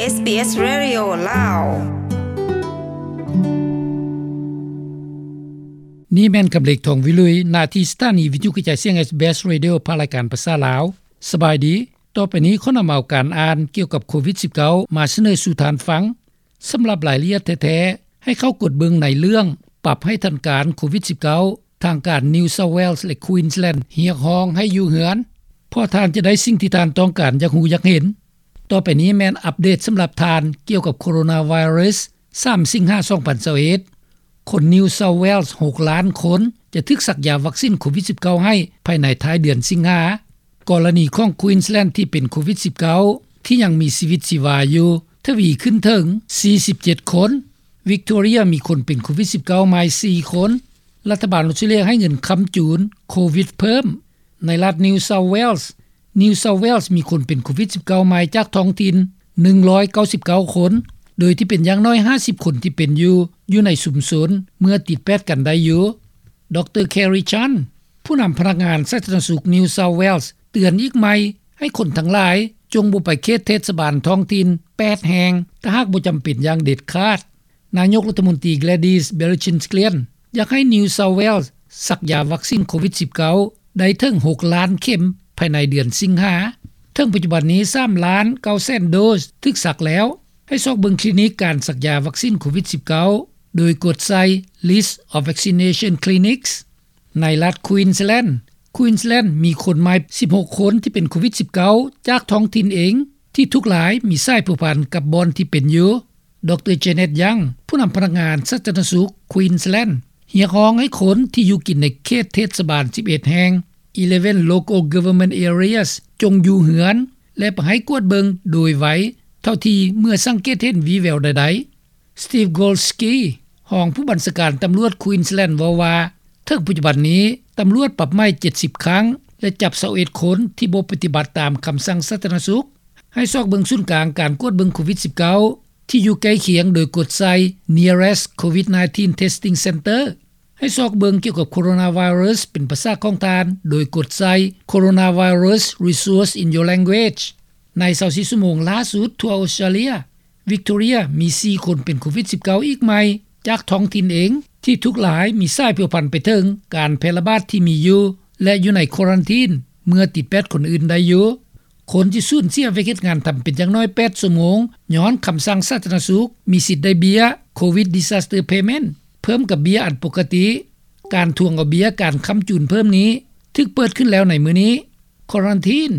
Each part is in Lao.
ເອສບີເອສ Radio ລາວ. ນີ້ແມ່ນກຳເລັກ ທອງວິລຸຍ ໜ້າທີ່ສະຖານີວິທຍຸກະຈາຍສຽງ SBS Radio ພາກລາຍການພາສາລາວ. ສະບາຍດີ. ຕໍ່ໄປນີ້ຂໍນຳເອົາການອ່ານກ່ຽວກັບໂຄວິດສິບເກົ້າ ມາສະເໜີສູ່ທ່ານຟັງ. ສຳລັບລາຍລະອຽດແທ້ໆ ໃຫ້ເຂົ້າກົດເບິ່ງໃນເລື່ອງ ປັບໃຫ້ທັນການໂຄວິດສິບເກົ້າ ທາງການ New South Wales ແລະ Queensland ຮຽກຮ້ອງໃຫ້ຢູ່ເຮືອນ ເພາະທ່ານຈະໄດ້ສິ່ງທີ່ທ່ານຕ້ອງການຢາກຮູ້ຢາກເຫັນ. ຕໍ່ໄປນີ້ແມ່ນອັບເດດສຳລັບທ່ານກ່ຽວກັບໂຄໂຣນາໄວຣັສ ສາມ ສິງຫາ ສອງພັນຊາວເອັດ. ຄົນ New South Wales ຫົກລ້ານຄົນ ຈະຖືກສັກຢາວັກຊິນໂຄວິດສິບເກົ້າໃຫ້ພາຍໃນທ້າຍເດືອນສິງຫາ. ກໍລະນີຂອງ Queensland ທີ່ເປັນໂຄວິດສິບເກົ້າ ທີ່ຍັງມີຊີວິດຊີວາຢູ່ ທະວີຂຶ້ນເຖິງ ສີ່ສິບເຈັດຄົນ. Victoria ມີຄົນເປັນໂຄວິດສິບເກົ້າໃໝ່ ສີ່ຄົນ. ລັດຖະບານອອສເຕຣເລັຽໃຫ້ເງິນຄ້ຳຈູນໂຄວິດເພີ່ມ. ໃນລັດ New South Wales, New South Wales ມີຄົນເປັນໂຄວິດສິບເກົ້າໃໝ່ຈາກທ້ອງຖິ່ນ ໜຶ່ງຮ້ອຍເກົ້າສິບເກົ້າຄົນ, ໂດຍທີ່ເປັນຢ່າງໜ້ອຍ ຫ້າສິບຄົນທີ່ເປັນຢູ່ ຢູ່ໃນຊຸມຊົນ ເມື່ອຕິດແປດກັນໄດ້ຢູ່. ດຣ Kerry Chant ຜູ້ນຳພະນັກງານສາທາລະນະສຸກ New South Wales ເຕືອນອີກໃໝ່ ໃຫ້ຄົນທັງຫຼາຍ ຈົ່ງບໍ່ໄປເຂດເທດສະບານທ້ອງຖິ່ນ ແປດແຫ່ງ ຖ້າຫາກບໍ່ຈຳເປັນຢ່າງເດັດຂາດ. ນາຍົກລັດຖະມົນຕີ Gladys Berejiklian ຢາກໃຫ້ New South Wales ສັກຢາວັກຊິນໂຄວິດສິບເກົ້າ ໄດ້ເຖິງ ຫົກລ້ານເຂັມ ພາຍໃນເດືອນສິງຫາ. ເຖິງປັດຈຸບັນນີ້ ສາມລ້ານເກົ້າແສນໂດສ ຖືກສັກແລ້ວ. ໃຫ້ຊອກເບິ່ງຄລີນິກການສັກຢາວັກຊິນໂຄວິດສິບເກົ້າ ໂດຍກົດໃສ່ List of Vaccination Clinics. ໃນລັດ Queensland, Queensland ມີຄົນໃໝ່ ສິບຫົກຄົນ ທີ່ເປັນໂຄວິດສິບເກົ້າ ຈາກທ້ອງຖິ່ນເອງ ທີ່ທຸກລາຍມີສາຍພົວພັນກັບບ່ອນທີ່ເປັນຢູ່. ດຣ Janet Young ຜູ້ນຳພະນັກງານສາທາລະນະສຸກ Queensland ຮຽກຮ້ອງໃຫ້ຄົນທີ່ຢູ່ກິນໃນເຂດເທດສະບານ ສິບເອັດແຫ່ງ Eleven Local Government Areas ຈົ່ງຢູ່ເຮືອນ ແລະ ໄປໃຫ້ກວດເບິ່ງໂດຍໄວເທົ່າທີ່ເມື່ອສັງເກດເຫັນວີ່ແວວໃດໆ. Steve Golsky ຮອງຜູ້ບັນຊາການຕຳຫຼວດ Queensland ເວົ້າວ່າ ເຖິງປັດຈຸບັນນີ້ ຕຳຫຼວດປັບໃໝເຈັດສິບຄັ້ງ ແລະ ຈັບຊາວເອັດຄົນທີ່ບໍ່ປະຕິບັດຕາມຄຳສັ່ງສາທາລະນະສຸກ. ໃຫ້ຊອກເບິ່ງສູນກາງການກວດເບິ່ງໂຄວິດສິບເກົ້າ ທີ່ຢູ່ໃກ້ຄຽງ ໂດຍກົດໃສ່ Nearest COVID nineteen Testing Centre. ໃຫ້ຊອກເບິ່ງກ່ຽວກັບໂຄໂຣນາໄວຣັສເປັນພາສາຂອງທ່ານ ໂດຍກົດໃສ່ Coronavirus Resource in your language. ໃນ ຊາວສີ່ ຊົ່ວໂມງຫຼ້າສຸດທົ່ວອົດສະຕຣາເລຍ, ວິກໂຕເຣຍມີສີ່ຄົນເປັນໂຄວິດສິບເກົ້າອີກໃໝ່ ຈາກທ້ອງຖິ່ນເອງ ທີ່ທຸກລາຍມີສາຍພົວພັນໄປເຖິງການແຜ່ລະບາດທີ່ມີຢູ່ ແລະ ຢູ່ໃນຄວາຣັນທີນເມື່ອຕິດແປດຄົນອື່ນໄດ້ຢູ່. ຄົນທີ່ສູນເສຍວຽກເຮັດງານທຳເປັນຢ່າງໜ້ອຍແປດຊົ່ວໂມງ ຍ້ອນຄຳສັ່ງສາທາລະນະສຸກ ມີສິດໄດ້ເບ້ຍ Covid Disaster Payment ເພີ່ມກັບເບ້ຍອັນປົກກະຕິ. ການທວງເອົາເບ້ຍການຄ້ຳຈູນເພີ່ມນີ້ ຖືກເປີດຂຶ້ນແລ້ວໃນມື້ນີ້. ຄວາຣັນທີນ,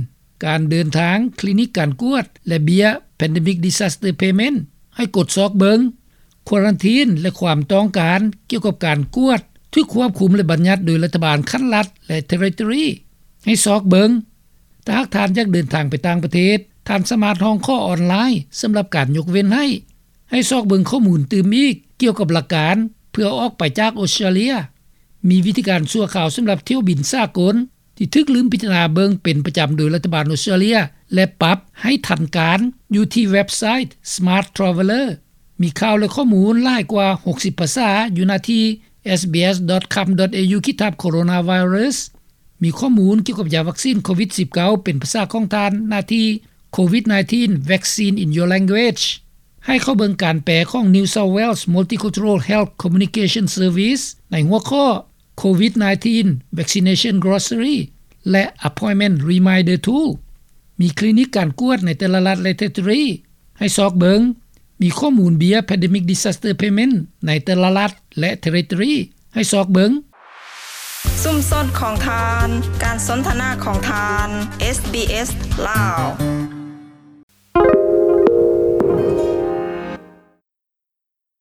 ການເດີນທາງ, ຄລີນິກການກວດ ແລະ ເບ້ຍ Pandemic Disaster Payment ໃຫ້ກົດຊອກເບິ່ງ. ຄວາຣັນທີນ ແລະ ຄວາມຕ້ອງການກ່ຽວກັບການກວດ ຖືກຄວບຄຸມ ແລະ ບັນຍັດໂດຍລັດຖະບານຂັ້ນລັດ ແລະ ເທຣິໂຕຣີ. ໃຫ້ຊອກເບິ່ງ. ຖ້າຫາກທ່ານຢາກເດີນທາງໄປຕ່າງປະເທດ, ທ່ານສາມາດຮ້ອງຂໍອອນລາຍສຳລັບການຍົກເວັ້ນໃຫ້. ໃຫ້ຊອກເບິ່ງຂໍ້ມູນຕື່ມອີກກ່ຽວກັບຫຼັກການເພື່ອອອກໄປຈາກອົດສະຕຣາເລຍ. ມີວິທີການຊົ່ວຄາວສຳລັບຖ້ຽວບິນສາກົນ ທີ່ຖືກລືມພິຈາລະນາເບິ່ງເປັນປະຈຳໂດຍລັດຖະບານອົດສະຕຣາເລຍ ແລະ ປັບໃຫ້ທັນການ ຢູ່ທີ່ເວັບໄຊ Smart Traveller. ມີຂ່າວ ແລະ ຂໍ້ມູນຫຼາຍກວ່າຫົກສິບພາສາ ຢູ່ໜ້າທີ່ SBS dot com dot au ຂີດທັບ Coronavirus. ມີຂໍ້ມູນກ່ຽວກັບຢາວັກຊິນໂຄວິດສິບເກົ້າ ເປັນພາສາຂອງທ່ານ ໜ້າທີ່ Covid nineteen Vaccine in Your Language. ໃຫ້ເຂົ້າເບິ່ງການແປຂອງ New South Wales Multicultural Health Communication Service ໃນຫົວຂໍ້ Covid nineteen Vaccination Glossary ແລະ Appointment Reminder Tool. ມີຄລີນິກການກວດໃນແຕ່ລະລັດ ແລະ ເທຣິໂຕຣີ. ໃຫ້ຊອກເບິ່ງ. ມີຂໍ້ມູນເບ້ຍ Pandemic Disaster Payment ໃນແຕ່ລະລັດ ແລະ ເທຣິໂຕຣີ. ໃຫ້ຊອກເບິ່ງ. ຊຸມຊົນຂອງທ່ານ, ການສົນທະນາຂອງທ່ານ, SBS ລາວ.